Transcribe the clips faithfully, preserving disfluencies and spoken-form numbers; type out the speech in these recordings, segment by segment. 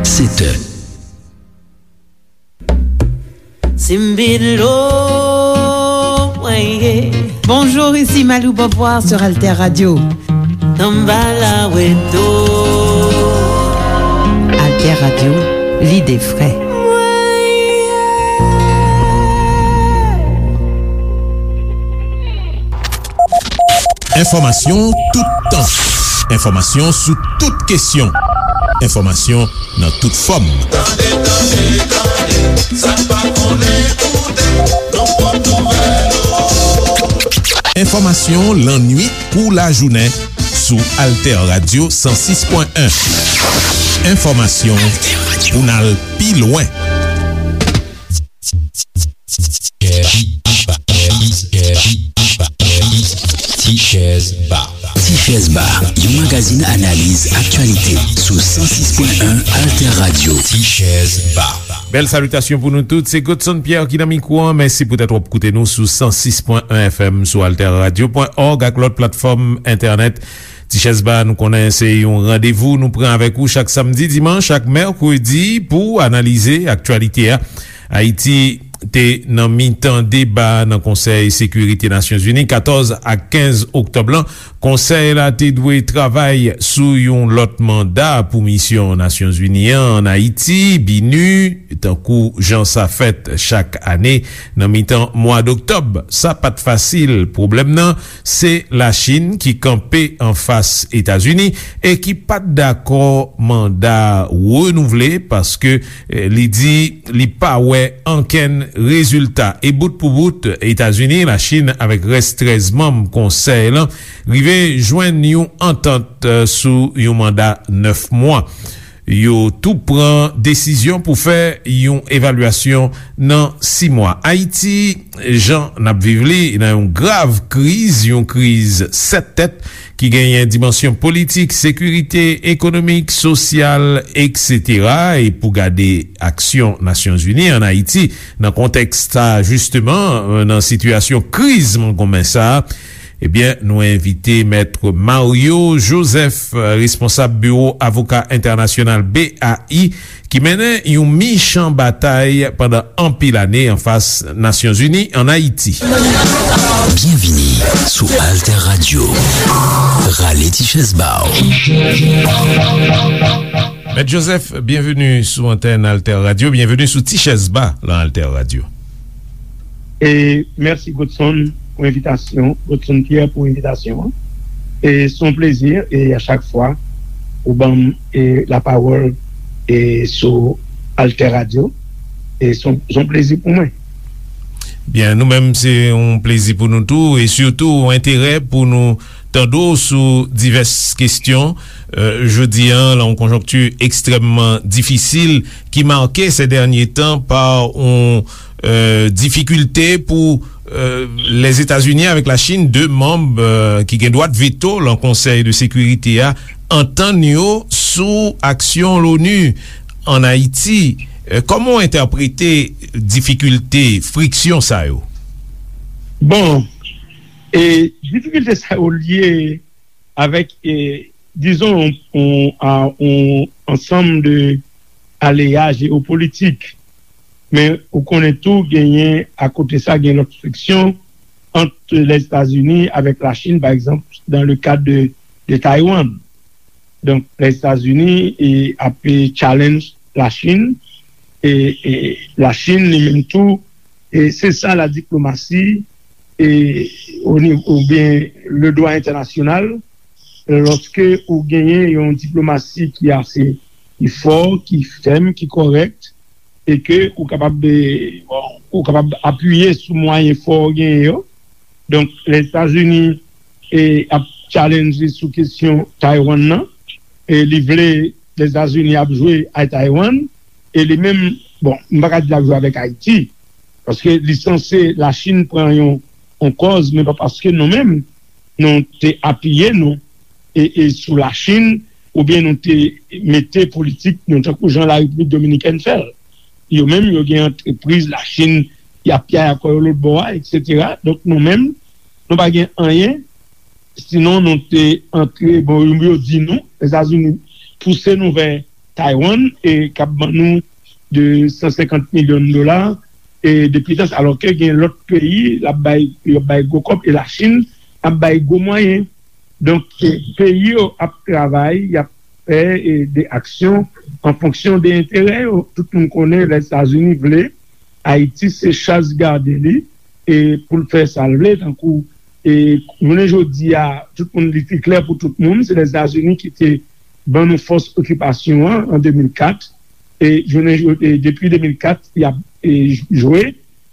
Sèt è. Simbilo, mwen ye. Bonjour, ici Malou Beauvoir sur Alter Radio. Tanbala weto. Alter Radio, l'idée frais. Enfòmasyon toutan. Enfòmasyon sou tout kesyon. Enfòmasyon nan tout fòm. Tande, tande, tande, sa n pa konnen koute, nan pwòp nouvèl ou. Enfòmasyon lannwit kou lajounen sou Alter Radio san sis pwen en. Enfòmasyon pou n al pi lwen. Tichèz Ba. Tichèz Ba, yon magazin analiz aktyalite sou san sis pwen en Alter Radio. Tichèz Ba. Bèl salitasyon pou nou tout. Se Godson Pierre ki nan mikwo an. Mèsi poutèt w ap koute nou sou san sis pwen en F M, sou alter radio pwen org ak lòt platfòm entènèt. Tichèz Ba, nou konnen se yon randevou nou pran avèk ou chak samdi, dimanch ak mèkredi pou analize aktyalite a. Ayiti te nan mitan deba nan Konsèy Sekirite Nasyonzini katòz ak kenz oktòb lan. Konsèy la te dwe travay sou yon lòt manda pou misyon Nasyonzini an ann Ayiti, BINUH, tankou jan sa fèt chak ane nan mitan mwa doktòb. Sa pa t fasil. Pwoblèm nan, se Lachin ki kanpe anfas Etazini e ki pa t dakò manda renouvle paske, eh, li di li pa wè ankenn rezilta. E bout pou bout, Etazini, Lachin avèk rès trèz manm konsèy lan rive jwenn yon antant, eh, sou yon manda nèf mwa. Yo tou pran desizyon pou fè yon evalyasyon nan sis mwa. Ayiti, jan n ap viv li, nan yon grav kriz, yon kriz sèt tèt ki genyen dimansyon politik, sekirite, ekonomik, sosyal, etsetera. E pou gade aksyon Nasyonzini ann Ayiti nan kontèks sa, jisteman, nan sitiyasyon kriz mongonmen sa, ebyen, nou envite Mèt Mario Joseph, responsab Biwo Avoka Entènasyonal, B A I, ki mennen yon michan batay pandan anpil ane anfas Nasyonzini ann Ayiti. Byenvini sou Alter Radio. Rale ti chèz ba w. Mèt Joseph, byenveni sou antèn Alter Radio, byenveni sou Ti Chèz Ba lan Alter Radio. E mèsi Godson pou envitasyon, Godson Pierre pou envitasyon an. E se yon plezi, e a chak fwa ou ban m, e, lapawòl, e, sou Alter Radio, e se yon, se yon plezi pou mwen. Byen, nou menm se yon plezi pou nou tou, e sitou yon enterè pou nou tande w sou divès kesyon, eh, jodi a, lan yon konjonkti ekstrèmman difisil ki make sè dènye tan pa yon, eh, difikilte pou, eh, Lèzetazini avèk Lachin, de manm, eh, ki gen dwa veto lan Konsèy de Sekirite a, antann yo sou aksyon Loni ann Ayiti. Eh, kòman w entèprete difikilte, friksyon sa yo? Bon, e difikilte sa yo lye avèk, e, dizon, yon, yon, a, yon ansanm de aleya jewopolitik. Men ou konnen tou genyen, akote sa, gen lòt friksyon ant Lèzetazini avèk Lachin, pa egzanp, dans le cadre de, de Taiwan. Donk, Lèzetazini, e, ap, e, challenge Lachin, e, e Lachin, li menm tou, e se sa la diplomasi, e, o nivo, oubyen le dwa entènasyonal, lòske ou genyen yon diplomasi ki ase, ki fò, ki fèm, ki kòrèk, e ke ou kapab, e, bon, ou kapab apiye sou mwayen fò ou genyen yo. Donk, Lèzetazini, e, ap challenge sou kesyon Taiwan nan, e li vle Lèzetazini ap jwe ak Taiwan, e li menm, bon, m pa ka di l ap jwe avèk Ayiti, paske li sanse Lachin pran yon, yon kòz, men pa paske nou menm, nou te apiye nou, e, e sou Lachin, oubyen nou te mete politik nou tankou jan Larepiblik Dominikèn fè l. Yo menm, yo gen antrepriz Lachin, y ap piyay akò yo lòt bò a, etsetera. Donk, nou menm, nou pa gen anyen, sinon nou te antre, bon, yo di nou, Lèzetazini pouse nou vè Taiwan, e k ap ban nou de san senkant milyon dola, e depi tan sa, alò ke gen lòt peyi l ap bay, yo ap bay gwo kòb, e Lachin ap bay gwo mwayen. Donk, e, peyi yo ap travay, y ap fè, e, de aksyon an fonksyon de enterè yo. Tout moun konnen Lèzetazini vle Ayiti se chaz gade li, e pou l fè sa l vle, tankou, e jounen jodi a, tout moun, li te klè pou tout moun, se Lèzetazini ki te ban nou fòs okipasyon an, an de mil kat, e jounen jo-, e depi de mil kat, y ap, e, jwe,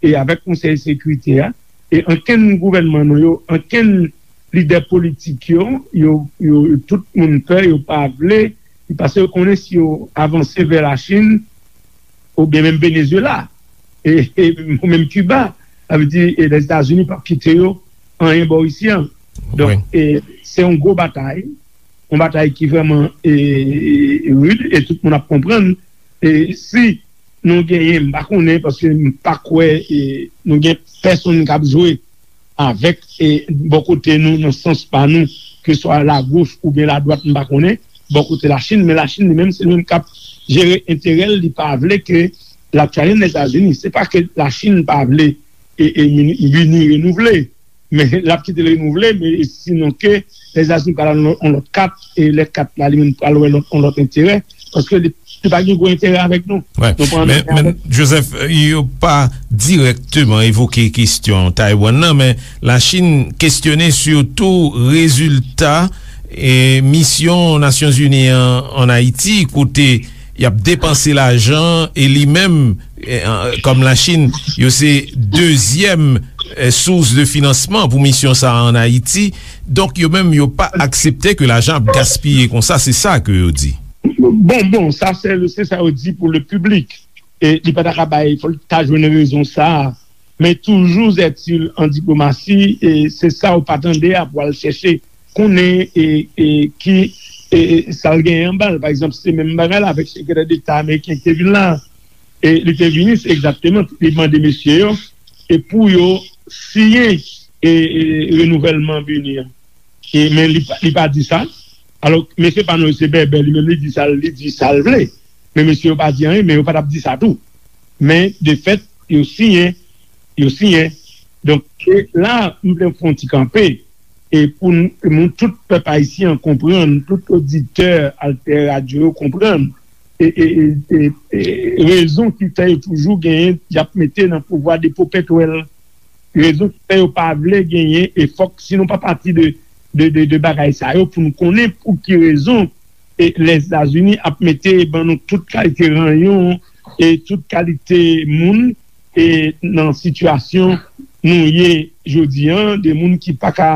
e avèk Konsèy Sekirite a, e ankenn gouvènman nou yo, ankenn lidè politik yo, yo, yo, tout moun pè, yo pa vle, paske yo konnen si yo avanse vè Lachin, oubyen menm Venezuela, e, e, ou menm Kiba, sa vle di, e, Lèzetazini p ap kite yo anyen bò isi an. Donk, e, se yon gwo batay, yon batay ki vrèman, e, e, rid, e tout moun ap konprann. E si nou genyen, m pa konnen, paske m pa kwè, e, nou gen pèsonn k ap jwe avèk, e, bò kote nou, nan sans pa nou, ke swa lagoch oubyen ladwat, m pa konnen, bò kote Lachin, men Lachin li menm, se li menm k ap jere enterè l, li pa vle ke l ap challenge Lèzetazini. Se pa ke Lachin pa vle, e, e, Bini renouvle, men l ap kite l renouvle, men sinon ke Lèzetazini pral al yon lòt kat, e lè kat la, li menm pral wè lòt, yon lòt enterè, paske li, li pa gen gwo enterè avèk nou. Wè. Nou pran Men, anyen men avèk Joseph, yo pa dirèkteman evoke kesyon Taiwan nan, men Lachin kesyone sitou rezilta, e, misyon Nasyonzini an ann Ayiti, kote y ap depanse lajan, e li menm, e, an, kòm Lachin, yo se dezyèm, e, sous de finansman pou misyon sa a ann Ayiti. Donk, yo menm, yo pa aksepte ke lajan ap gaspiye konsa, se sa ke yo di. Bon, bon, sa se, se sa yo di pou le piblik. E li pa ta ka bay, fò l ta jwenn rezon sa a. Men toujou, Zètil, an diplomasi, e se sa ou pa tande a pou al chèche konnen, e, e ki, e, e sa l genyen anba l. Pa egzanp, se menm bagay la avèk sekretè deta ameriken ki te vin la. E li te vini, se egzakteman, li mande mesye yo, e pou yo siyen, e, e renouvèlman Bini an. E, men li pa, li pa di sa. Alò, mesye pa nou se bèbè, li menm li di sa, li di sa l vle. Men mesye yo pa di anyen, men yo pa t ap di sa tou. Men, de fèt, yo siyen, yo siyen. Donk, e la, m vle fè yon ti kanpe, e pou n, pou tout pèp ayisyen an konprann, tout oditè Alter Radio yo konprann, e, e, e, e, e rezon ki fè yo toujou genyen, y ap mete nan pouvwa de popetwèl. Rezon ki fè yo pa vle genyen, e fòk, si nou pa pati de, de, de, de bagay sa yo, pou nou konnen pou ki rezon, e, Lèzetazini ap mete ban nou tout kalite ranyon, e tout kalite moun, e nan sitiyasyon nou ye jodi an, de moun ki pa ka,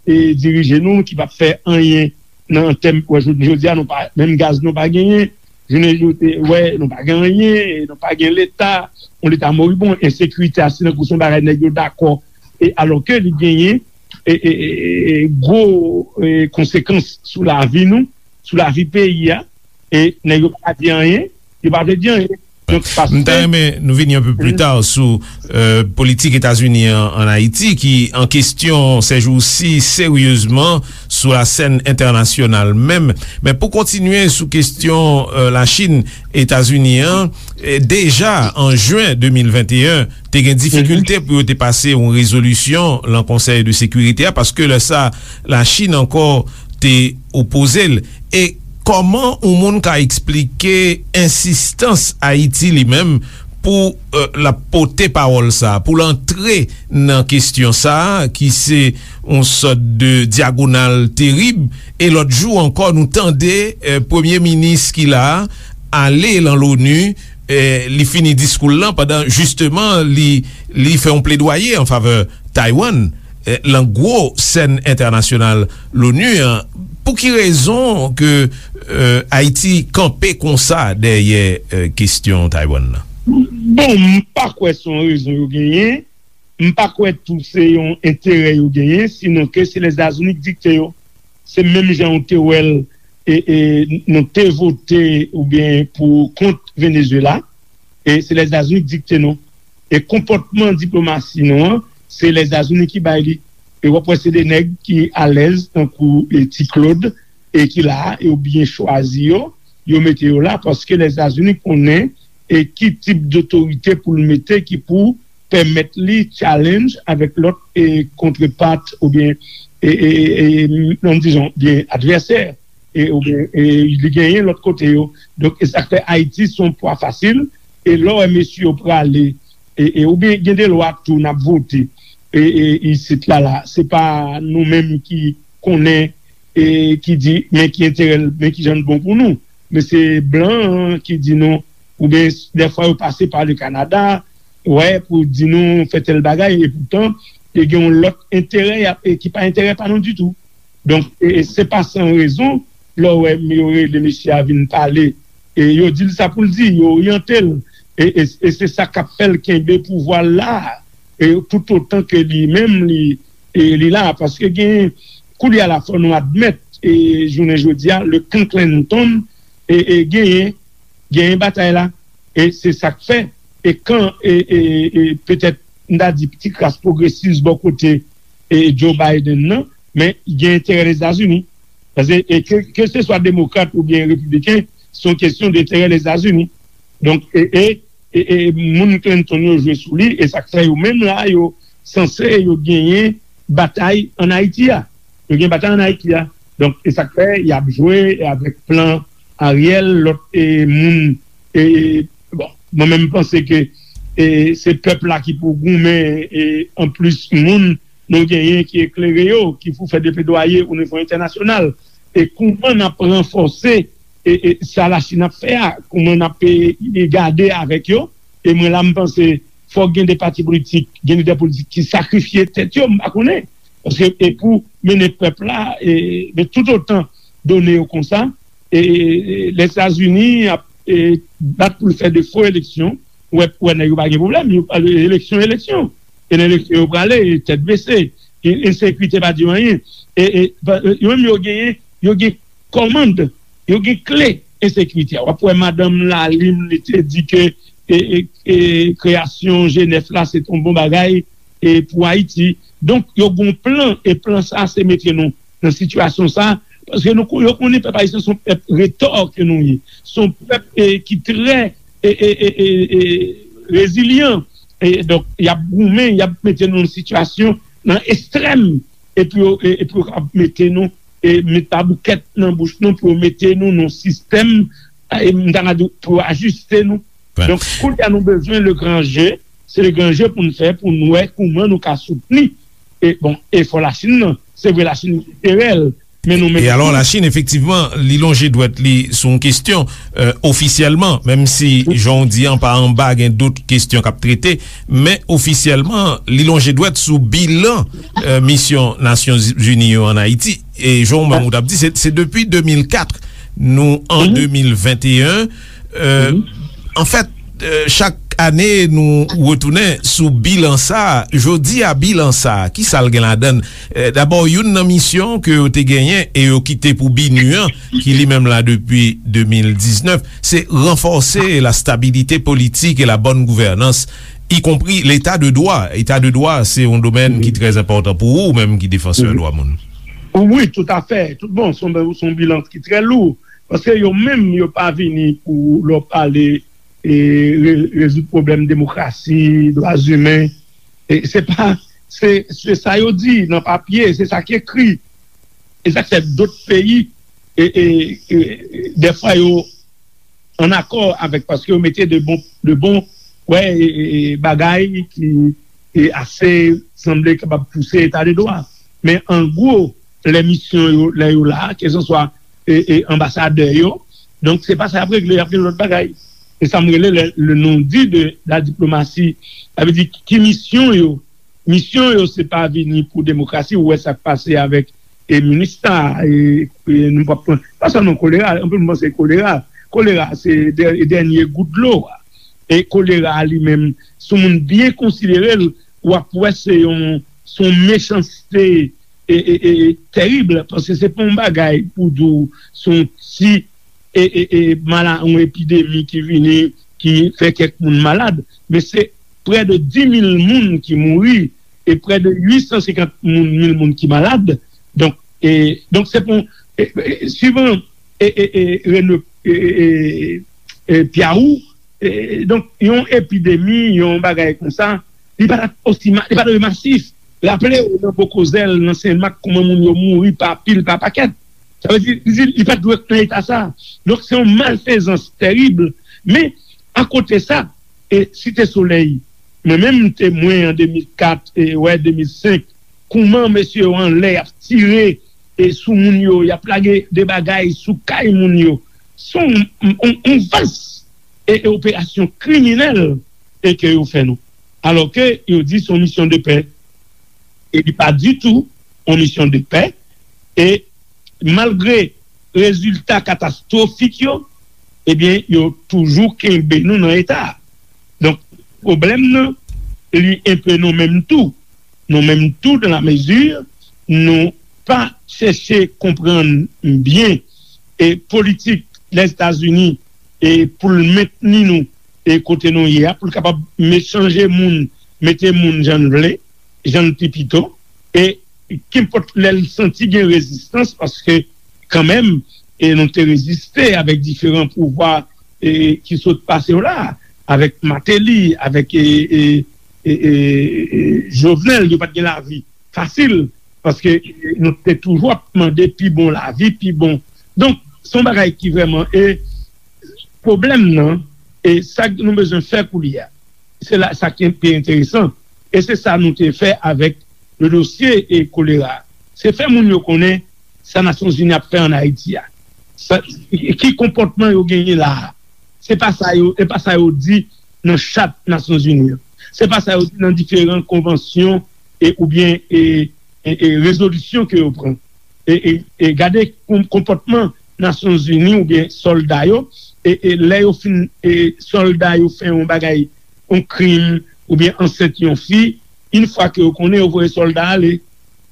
e, dirije nou, ki p ap fè anyen nan tèm, wè, jodi, jodi a, nou pa, menm gaz nou pa genyen, jounen jodi, wè, nou pa gen anyen, e nou pa gen leta, yon leta moribon, ensekirite a, se tankou se yon bagay nèg yo dakò, e alò ke li genyen, e, e, e, e, gwo, e, konsekans sou lavi nou, sou lavi peyi a, e nèg yo pa di anyen, yo pa vle di anyen. Donk, paske M ta renmen nou vini yon pe pli ta sou, e, politik Etazini an, ann Ayiti, ki an kesyon sèjousi seryezman sou lasèn entènasyonal menm. Men pou kontinye sou kesyon, e, Lachin, Etazini an, e, deja an jen de mil venteyen, te gen difikilte pou yo te pase yon rezolisyon lan Konsèy de Sekirite a, paske lè sa, Lachin ankò te opoze l. E kòman yon moun ka eksplike ensistans Ayiti li menm pou, e, l ap pote pawòl sa, pou l antre nan kesyon sa, ki se yon sòt de dyagonal terib? E lòt jou ankò, nou tande, e, premye minis ki la a ale lan Loni, e, li fini diskou l lan pandan, jisteman, li, li fè yon pledwaye an favè Taiwan, e, lan gwo sèn entènasyonal Loni an. Pou ki rezon ke, e, Ayiti kanpe konsa dèyè, e, kesyon Taiwan nan? Bon, m pa kwè se yon rezon yo genyen. M pa kwè tou se yon enterè yo genyen, sinon ke se Lèzetazini ki dikte yo. Se menm jan w te wè l, e, e, nou te vote oubyen pou kont Venezuela, e se Lèzetazini ki dikte nou. E konpòtman diplomasi nou an, se Lèzetazini ki bay li. E w ap wè se de nèg ki alèz, tankou, e, Ti Claude, e ki la a, e yo byen chwazi yo. yo mete yo la, paske Lèzetazini konnen e ki tip dotorite pou l mete ki pou pèmèt li challenge avèk lòt e kontrepart oubyen e, e, e, e, non, dizon, byen advèsè e, oubyen e, li genyen lòt kote yo. Donk, e sa k fè Ayiti se yon pwa fasil. E lè w wè mesye yo prale e, e, oubyen gen de lwa tou n ap vote e, e, isit la, la. Se pa nou menm ki konnen e ki di men ki enterè l, men ki jan l bon pou nou. Men se blan an ki di nou, oubyen dèfwa yo pase pa le Kanada, wè, pou di nou fè tèl bagay, epoutan, yo gen yon lòt enterè y ap, e ki pa enterè pa nou ditou. Donk, e, e se pa san rezon, lè w wè yo rele mesye a vin pale, e yo di l sa pou l di, yo oryante l, e, e, e se sa k ap fè l kenbe pouvwa l la, e toutotan ke li menm, li, e li la, paske gen, koulye a la, fò nou admèt, e jounen jodi a, le Clan Clinton, e, e genyen, genyen batay la, e se sa k fè, e kan, e, e, e petèt, m ta di, ti kras pwogresis bò kote, e Joe Biden nan, men gen enterè Lèzetazini. Paske, e ke, ke se swa demokrat oubyen repibliken, se yon kesyon de enterè Lèzetazini. Donk, e, e, e, e moun Clinton yo jwe sou li, e sa k fè yo menm la, yo sanse yo genyen batay ann Ayiti a. Yo gen batay ann Ayiti a. Donk, e sa k fè y ap jwe avèk plan Ariel, lòt e, moun. E, bon, mwen menm m panse ke e, se pèp la ki pou goumen, e anplis moun nou genyen ki eklere yo, ki pou fè de pledwaye o nivo entènasyonal. E kouman n ap ranfòse e, e sa Lachin ap fè a, kouman n ap e, e gade avèk yo. E mwen la, m panse fòk gen de pati politik, gen lidè politik ki sakrifye tèt yo, m pa konnen. Paske e pou mennen pèp la, e, men toutotan done yo konsa, e, e, e Lèzetazini ap e, bat pou l fè de fo eleksyon, ou wè, ou wè nèg yo pa gen pwoblèm, yo, eleksyon, eleksyon. E nan eleksyon yo prale, tèt bese, e, ensekirite pa di yo anyen. E, e, pa, e, yo menm yo genyen, yo gen kòmand, yo gen kle ensekirite a. W ap wè madanm Lalim, li te di ke e, e, e, kreyasyon G nèf la, se t on bon bagay e, pou Ayiti. Donk, yo gon plan, e plan sa, se mete nou nan sitiyasyon sa, paske nou, yo konnen pèp ayisyen se yon pèp retò ke nou ye. Se yon pèp e, ki trè e, e, e, e, e, rezilyan. E, donk, y ap goumen, y ap mete nou nan sitiyasyon, nan ekstrèm, epi yo, e, epi yo ap mete nou, e, met paboukèt nan bouch nou pou yo mete nou nan sistèm, e, m ta ka di, pou yo ajiste nou. Donk, kounye a nou bezwen le gran je, se le gran je pou n fè, pou n wè kouman nou ka soutni, e, bon, efò Lachin nan. Se vre, Lachin enterè l, men nou menm tou. E alò, Lachin, efektivman, li lonje dwèt li sou yon kesyon, e, ofisyèlman, menm si, jan w di an, pa anba, gen dout kesyon k ap trete, men ofisyèlman, li lonje dwèt sou bilan, e, misyon Nasyonzini yo ann Ayiti. E jan w menm ou t ap di, se, se depi de mil kat, nou an de mil venteyen. E, anfèt, e, chak ane, nou retounen sou bilan sa a. Jodi a, bilan sa a, ki sa l gen ladan l? E, dabò, youn nan misyon ke yo te genyen e yo kite pou BINUH an, ki li menm la depi de mil diznèf, se ranfòse la stabilité politique et la bonne gouvernance, y compris l'état de droit. Eta de dwa, se yon domèn ki trè enpòtan pou ou, ou menm ki defansè dwa moun. Wi, toutafè. Tout bon, se yon, se yon bilan ki trè lou. Paske yo menm, yo pa vini pou lè w pale e, re-, rezoud pwoblèm demokrasi, dwa imen. E se pa, se, se sa yo di nan papye, se sa ki ekri. E sa k fè dòt peyi, e, e, e, dèfwa yo ann akò avèk, paske yo mete de bon, de bon, wè, e, e, e, bagay ki e ase sanble kapab pouse eta de dwa. Men an gwo, lè misyon yo, lè yo la, kèlkanswa e, e, anbasadè yo, donk se pa sa y ap regle, y ap gen lòt bagay. Se sa m rele le, le non-dit de la diplomatie. Sa vle di, ki misyon yo? Misyon yo, se pa vini pou demokrasi, ou wè sa k pase avèk e, MINUSTAH, e, e, nou p ap pran, pa sèlman kolera, anpil moun panse kolera. Kolera, se dè-, dènye gout dlo a. E kolera a li menm, si yon moun byen konsidere l, w ap wè se yon, se yon mechanste e, e, e, terib, paske se pa yon bagay pou di w se yon ti e, e, e, mala-, yon epidemi ki vini, ki fè kèk moun malad, men se prè de dis mil moun ki mouri e prè de uit san senkant moun, mil moun ki malad. Donk, e, donk se pou, e, e, suivan e, e, e, Rene e, e, e, e, Pyawou. E, donk, yon epidemi, yon bagay konsa, li pa t osi ma-, li pa t masif. Raple w, nan Bokozèl, nan Senmak, kòman moun yo mouri pa pil, pa pakèt. Sa vle di, li, li pa t dwe nan eta sa. Donk, se yon malfezans tèrib. Men, akote sa, e Site Solèy, mwen menm, m temwen an de mil kat, e, wè, de mil senk, kòman mesye yo anlè, y ap tire, e, sou moun yo, y ap lage de bagay sou kay moun yo. Se yon, yon, yon vas e, e operasyon kriminèl e ke yo fè nou. Alò ke yo di se yon misyon de pè. E li pa ditou yon misyon de pè. E malgre rezilta katastwofik yo, ebyen, yo toujou kenbe nou nan eta a. Donk, pwoblèm nan, li enpe nou menm tou. Nou menm tou, dans la mesure, nou pa chèche konprann byen e politik Lèzetazini e pou l mentni nou e kote nou ye a, pou l kapab me-, chanje moun, mete moun jan l vle, jan l pi pito, e kenpòt lè l santi gen rezistans, paske kanmenm, e nou te reziste avèk diferan pouvwa, e ki sot pase yo la, avèk Martelly, avèk, e, e, e, e, e, Jovenel, yo pa t gen lavi fasil, paske nou te toujou ap mande pi bon lavi, pi bon. Donk, se yon bagay ki vrèman, e pwoblèm nan, e sa nou bezwen fè koulye a, se la, sa ki pi enteresan, e se sa nou te fè avèk le dosye e kolera. Se fè moun yo konnen sa Nasyonzini ap fè ann Ayiti a. Sa, ki konpòtman yo genyen la a. Se pa sa yo, se pa sa yo di nan chat Nasyonzini yo. Se pa sa yo di nan diferan konvansyon e, oubyen, e, e, e rezolisyon ke yo pran. E, e, e gade kon-, konpòtman Nasyonzini oubyen sòlda yo, e, e lè yo fin, e sòlda yo fè yon bagay, yon krim, oubyen ansent yon fi, yon fwa ke yo konnen, yo voye sòlda ale.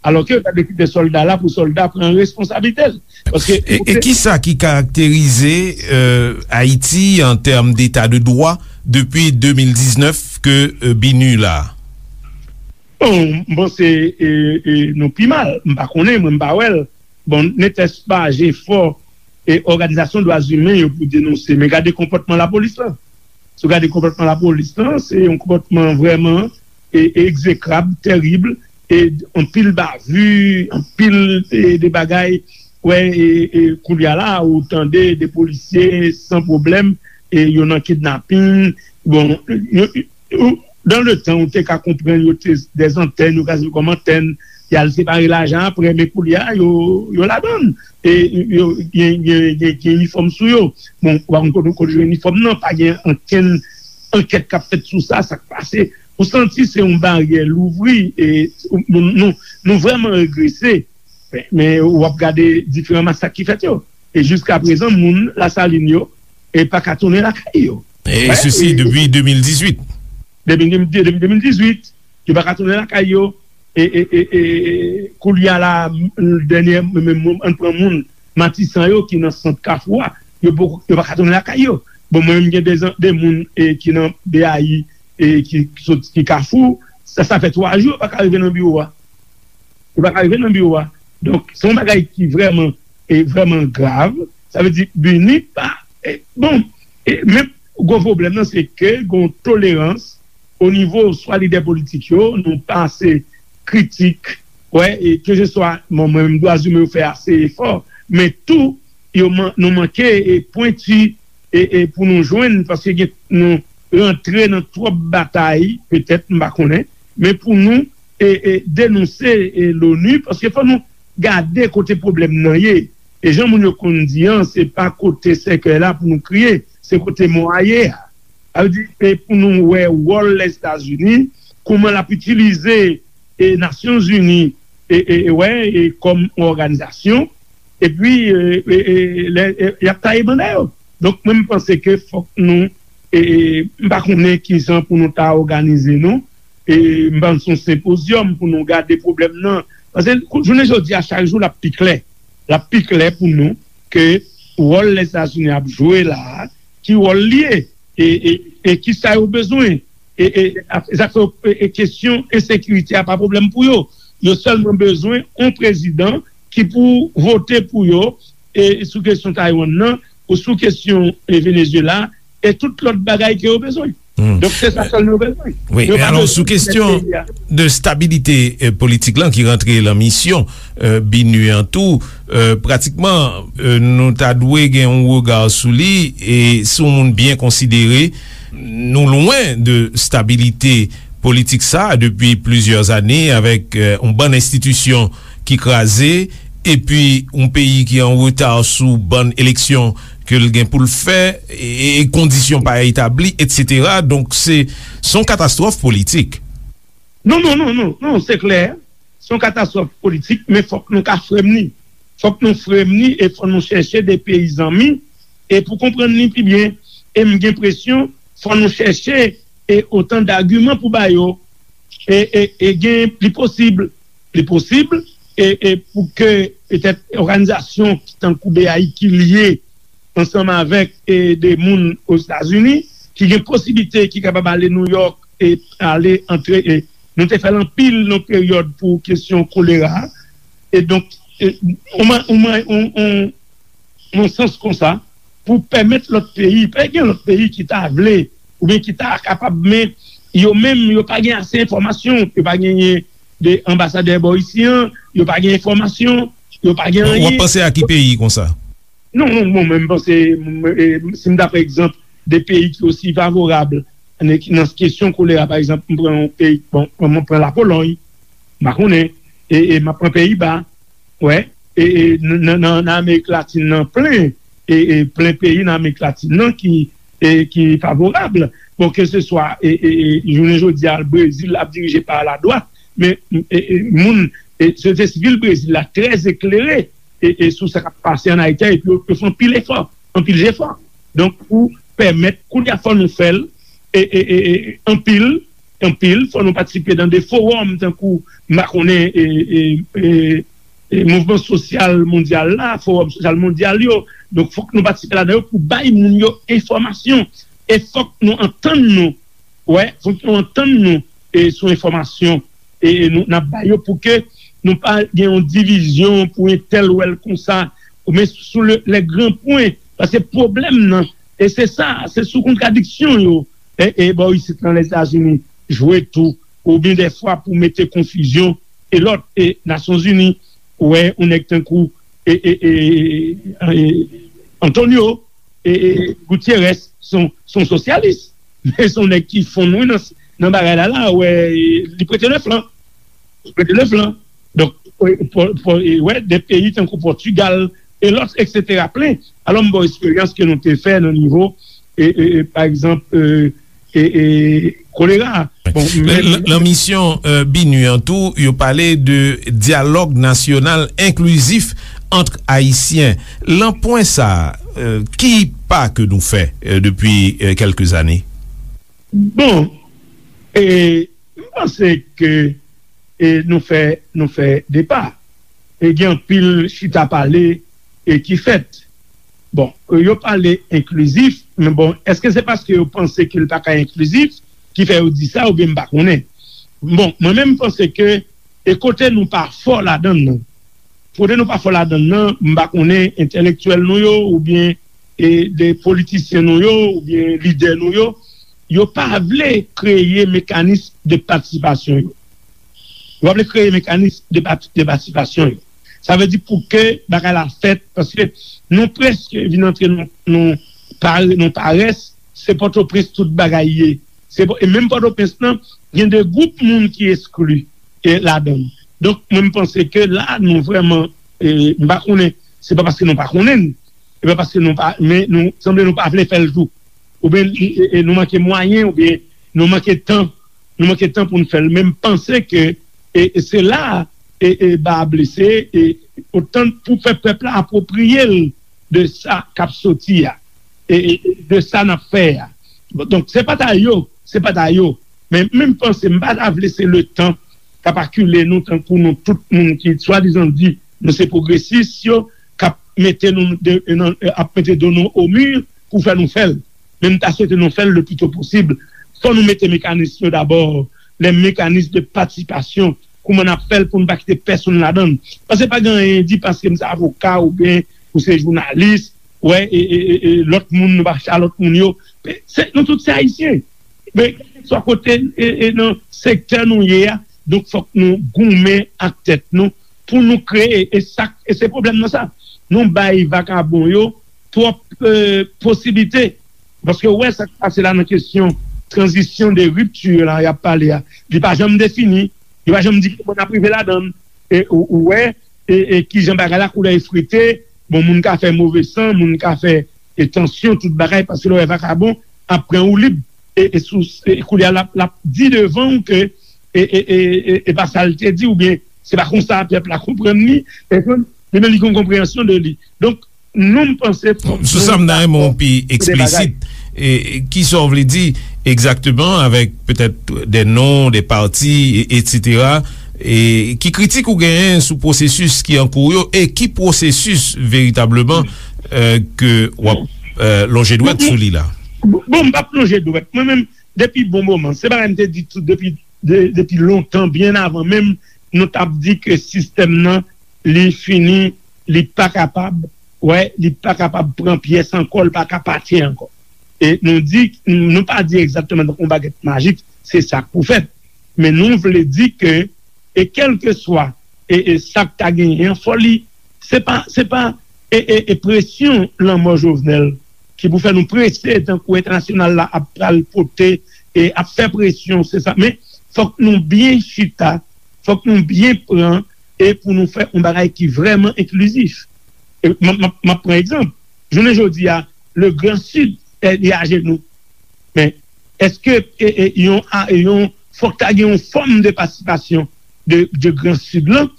Alò ke yo ta dwe kite sòlda la pou sòlda pran responsablite l. Paske e, e ki sa ki karakterize, euh, Ayiti an tèm deta de dwa depi de mil diznèf ke, euh, BINUH la? Bon, m panse, e, e, nou pi mal. M pa konnen, mwen m pa wè l. Bon, netèspa jefò e òganizasyon dwa imen yo pou denonse. Men gade konpòtman lapolis lan. Si w gade konpòtman lapolis lan, se yon konpòtman vrèman, e, e egzekrab, tèrib, e anpil bavi, anpil, e, de bagay. Wè, e, e koulye a la, ou tande de polisye san pwoblèm, e yo nan kidnapin. Bon, yo, ou, dans le temps, ou te ka konprann yo te dèzantèn, yo ka sèvi kòm antèn, y al separe lajan apre, men koulye a, yo, yo ladan l. E yo gen, gen, gen, gen inifòm sou yo. Bon, ou pa konn kote, kote yo jwenn inifòm nan, pa gen ankenn ankèt k ap fèt sou sa, sa k pase. Ou santi se yon baryè louvri, e nou, nou, nou vrèman regrese. Men, men w ap gade diferan masak ki fèt yo. E jiska prezan, moun Lasalin yo, e pa ka tounen lakay yo. E sesi depi de mil dizuit. Depi, depi de mil dizuit, yo pa ka tounen lakay yo. E, e, e, e, koulye a la, dènye, men, men, ann pran moun Matisan yo ki nan sant Kafou a, yo poko, yo pa ka tounen lakay yo. Bon, mwen menm, gen de, de moun, e, ki nan B A I, e, ki, ki sot, ki Kafou, sa, sa fè twa jou yo pa ka rive nan biwo a. Yo pa ka rive nan biwo a. Donk, se yon bagay ki vrèman, e vrèman grav. Sa vle di, BINUH pa, e, bon, e, men gwo pwoblèm nan, se ke gon tolerans o nivo swa lidè politik yo, nou pa ase kritik, wè, e keseswa, bon, mwen menm, dwa imen yo fè ase efò, men tou, yo man-, nou manke, e, pwenti, e, e pou nou jwenn, paske gen, nou rantre nan twòp batay, petèt, m pa konnen, men pou nou, e, e, denonse, e, l'ONU, paske fò nou gade kote pwoblèm nan ye. E jan moun yo konn di an, se pa kote sèkèy la pou nou kriye, se kote mò a ye a. Sa vle di, e pou nou wè wòl Lèzetazini, kòman l ap itilize, e, Nasyonzini, e, e, e, wè, e, kòm yon òganizasyon, epi, e, e, e, lè, e, y ap taye banda yo. Donk, mwen, m panse ke fòk nou, e, e, m pa konnen kijan pou nou ta òganize nou, e, m panse yon senpozyòm pou nou gade pwoblèm nan. Paske, kou-, jounen jodi a, chak jou, l ap pi klè. L ap pi klè pou nou ke wòl Lèzetazini ap jwe la a, ki wòl li ye, e, e, e ki sa yo bezwen. E, e, a-, zafè, e, e kesyon ensekirite a pa pwoblèm pou yo. Yo sèlman bezwen yon prezidan ki pou vote pou yo, e, sou kesyon Taiwan nan, ou sou kesyon e Venezuela, e tout lòt bagay ke yo bezwen. Donk, se sa sèl nou bezwen. Wi, men alò, sou kesyon de stabilite politik lan ki rantre lan misyon BINUH an tou, pratikman, nou ta dwe gen yon rega sou li, e si yon moun byen konsidere, nou lwen de stabilite politik sa depi plizyè ane, avèk yon bann enstitisyon ki kraze, epi yon peyi ki an reta sou bann eleksyon ke l gen pou l fè, e kondisyon pa etabli, etsetera. Donk, se se yon katastwòf politik. Non, non, non, non, non, se klè. Se yon katastwòf politik, men fòk nou ka fremni. Fòk nou fremni e fòk nou chèche de peyi zanmi, e pou konprann li pi byen, e m gen enpresyon, fòk nou chèche e otan dagiman pou ba yo, e, e, e gen, li posib, li posib, e, e pou ke petèt òganizasyon ki tankou BAI ki lye ansanm avèk e de moun Ozetazini, ki gen posiblite, ki kapab ale Nouyòk e ale antre, e nou te fè l anpil nan peryòd pou kesyon kolera. E donk, e, yon, yon, yon, yon sans konsa pou pèmèt lòt peyi, pa gen lòt peyi ki ta vle oubyen ki ta kapab, men yo menm, yo pa gen ase enfòmasyon, yo pa genyen de anbasadè bò isi an, yo pa gen enfòmasyon, yo pa gen anyen. W ap panse a ki peyi konsa? Non, non, bon, men m panse, m, e, si m ta pran egzanp de peyi ki osi favorab nan, nan kesyon kolera, pa egzanp, m pran yon peyi, bon, m pran Lapolòy, m pa konnen, e, e m ap pran Peyiba, wè, e, e nan, nan, nan Amerik Latin nan plen, e, e plen peyi nan Amerik Latin nan ki, e, ki favorab. Bon, ke se swa, e, e, e jounen jodi a, Brezil ap dirije pa ladwat, men, e, e moun, e, sosyete sivil Brezil la trè eklere, e, e sou sa k ap pase ann Ayiti a, epi yo, yo fè anpil efò, anpil jefò. Donk, pou pèmèt, kounye a, fò nou fè l, e, e, e, e, anpil, anpil, fò nou patisipe nan de fowòm, tankou, m pa konnen, e, e, e, e, mouvman sosyal mondyal la, fowòm sosyal mondyal yo. Donk, fòk nou patisipe ladan yo pou bay moun yo enfòmasyon. E fòk nou antann nou, wè, fòk nou antann nou, e, sou enfòmasyon, e, e nou, n ap bay yo pou ke nou pa gen yon divizyon pou entèl wè l konsa, men sou le, les grands points, paske pwoblèm nan, e se sa, se sou kontradiksyon yo, e, e bò isit nan Lèzetazini jwe tou, oubyen dèfwa pou mete konfizyon, e lòt, e Nasyonzini, ou wè, yon nèg tankou, e, e, e, e, Antonio, e, e, Gutierrez, se yon, se yon sosyalis, men se yon nèg ki fonn, wi, nan, nan bagay la, la, ou wè, e, li prete le flan. Li prete le flan. Donk, e, pou, pou, e, wè, de peyi tankou Pòtigal, e lòt, etsetera, plen. Alò, m ba w esperyans ke nou te fè nan nivo, e, e, e, pa egzanp, e, e, e, kolera. Bon, men, lan misyon, e, BINUH an tou, yo pale de dyalòg nasyonal enklizif ant Ayisyen. Lan pwen sa, e, ki pa ke nou fè, e, depi, e, kèlke zane? Bon, e, m panse ke, e, nou fè, nou fè de pa. E gen anpil chita pale, e, ki fèt. Bon, yo pale enklizif, men bon, èske se paske yo panse ke l pa ka enklizif ki fè yo di sa, oubyen m pa konnen? Bon, mwen menm, m panse ke, e kote nou pa fò ladan l nan, kote nou pa fò ladan l nan, m pa konnen entèlektyèl nou yo, oubyen, e, de politisyen nou yo, oubyen lidè nou yo, yo pa vle kreye mekanis de patisipasyon yo. Yo pa vle kreye mekanis de pati-, de patisipasyon yo. Sa vle di pou ke bagay la fèt, paske nou prèske vin antre nan, nan pare-, nan parès, se Pòtoprens tout bagay ye. Se Pò-, e menm Pòtoprens lan, gen de gwoup moun ki eskli, e, ladan l. Donk, mwen, m panse ke la, nou vrèman, e, m pa konnen, se pa paske nou pa konnen l, e pa paske nou pa, men nou, sanble nou pa vle fè l tou. Oubyen, e, e, nou manke mwayen, oubyen nou manke tan, nou manke tan pou n fè l. Men m panse ke, e, e se la, e, e, ba a blese, e, otan pou fè pèp la apwopriye l de sa k ap soti a, e, e, e de sa n ap fè a. Bon, donk, se pa ta yo, se pa ta yo. Men, men m panse, m pa ta vle se letan k ap akile nou tankou nou tout moun ki swadizan di nou se pwogresis yo, k ap mete nou de, nan, ap mete do nou o mi pou fè nou fè l. Men m ta swete nou fè l le pli to posib. Fò nou mete mekanis yo dabò, les mécanismes de participation, kouman n ap fè l pou n pa kite pèsonn ladan l. Paske pa gen anyen di paske m se avoka oubyen ou se jounalis, wè, e, e, e, e, lòt moun, nou pa chita lòt moun yo. Se, nou tout se Ayisyen. Men, kèlkeswa kote, e, e, nan sektè nou ye a, donk fòk nou goumen ak tèt nou pou nou kreye. E sa, e se pwoblèm nan sa. Nou bay vakabon yo twòp, e, posiblite. Paske ou wè sa k pase la nan kesyon tranzisyon de ripti la y ap pale a. Li pa janm defini. Li pa janm di kòman n ap rive ladan l. E ou, ou wè, e, e kijan bagay la koulè efrite. Bon, moun ka fè move san, moun ka fè, e, tansyon, tout bagay, paske lè w wè vakabon ap pran ou lib. E, e sou, e koulye a, l ap, l ap di devan w ke, e, e, e, e, e pa sa l te di, oubyen se pa konsa pèp la konprann li, e konn, li menm li gen yon konpreyansyon de li. Donk, nou, m panse fòk Sou sa, m ta renmen w pi eksplisit. E, e, kisa w vle di egzakteman avèk petèt de non, de pati, e, etsetera? E ki kritik ou genyen sou pwosesis ki an kou yo e ki pwosesis veritableman, e, ke w ap, e, lonje dwèt sou li la? Bon, bon, m p ap lonje dwèt. Mwen menm, depi bon moman, se bagay m te di tou depi, de, depi lontan, byen avan menm nou t ap di ke sistèm nan, li fini, li pa kapab, wè, li pa kapab pran pyès ankò, li pa ka pati ankò. E nou di, nou pa di egzakteman tankou yon bagèt majik, se sa k pou fèt. Men nou vle di ke, e kèlkeswa, e, e sa k ta genyen an, fò li, se pa, se pa, e, e, e presyon lanmò Jovenel ki pou fè nou prese tankou entènasyonal la ap pral pote, e ap fè presyon, se sa. Men fòk nou byen chita, fòk nou byen pran, e pou nou fè yon bagay ki vrèman enklizif. E m, m, m ap pran egzanp. Jounen jodi a, le Grand Sud, e, li ajenou. Men, èske, e, e, yon, a, yon, fòk ta gen yon fòm de patisipasyon de, de Gran Sid lan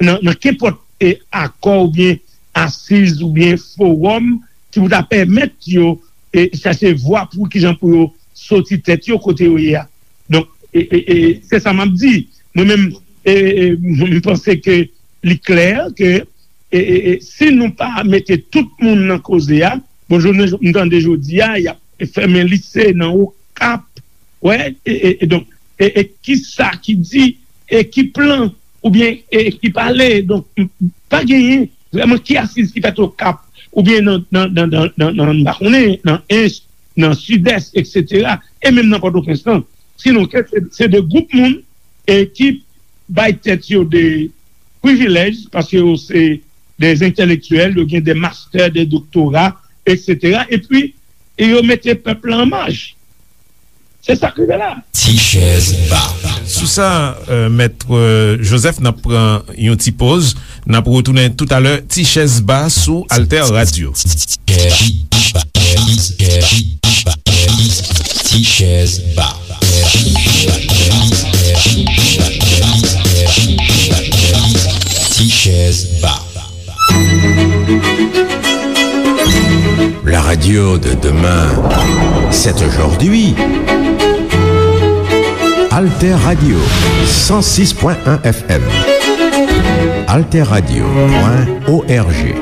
nan, nan kenpòt, e, akò oubyen asiz oubyen fowòm ki pou ta pèmèt yo, e, chache vwa pou kijan pou yo soti tèt yo kote yo ye a. Donk, e, e, e, se sa m ap di. Mwen menm, e, e, m panse ke li klè ke, e, e, e, si nou pa mete tout moun nan koze a, bon, jounen, m tande jodi a, y ap fèmen lise nan Okap, wè, e, e, e donk, e, e kisa ki di, e ki plan, oubyen, e ki pale, donk, m, pa genyen vrèman ki asiz ki fèt Okap, oubyen nan, nan, nan, nan, nan, nan, m pa konnen, nan Ench, nan Sidès, etsetera, e menm nan Pòtoprens lan. Sinon, ke se, se de gwoup moun, e ki bay tèt yo de privilèj, paske yo se de entèlektyèl, yo gen de mastè, de doktora, etsetera. Epi, e yo mete pèp la an maj. Se sa k rive la. Ti chèz ba. Sou sa, euh, Mèt, euh, Joseph, n ap pran yon ti poz. N ap retounen toutalè, Ti chèz ba sou Alter Radio. Ti chèz ba. Ti chèz ba. La radio de demain, c'est aujourd'hui. Alter Radio, cent six point un F M. Alter Radio point O R G.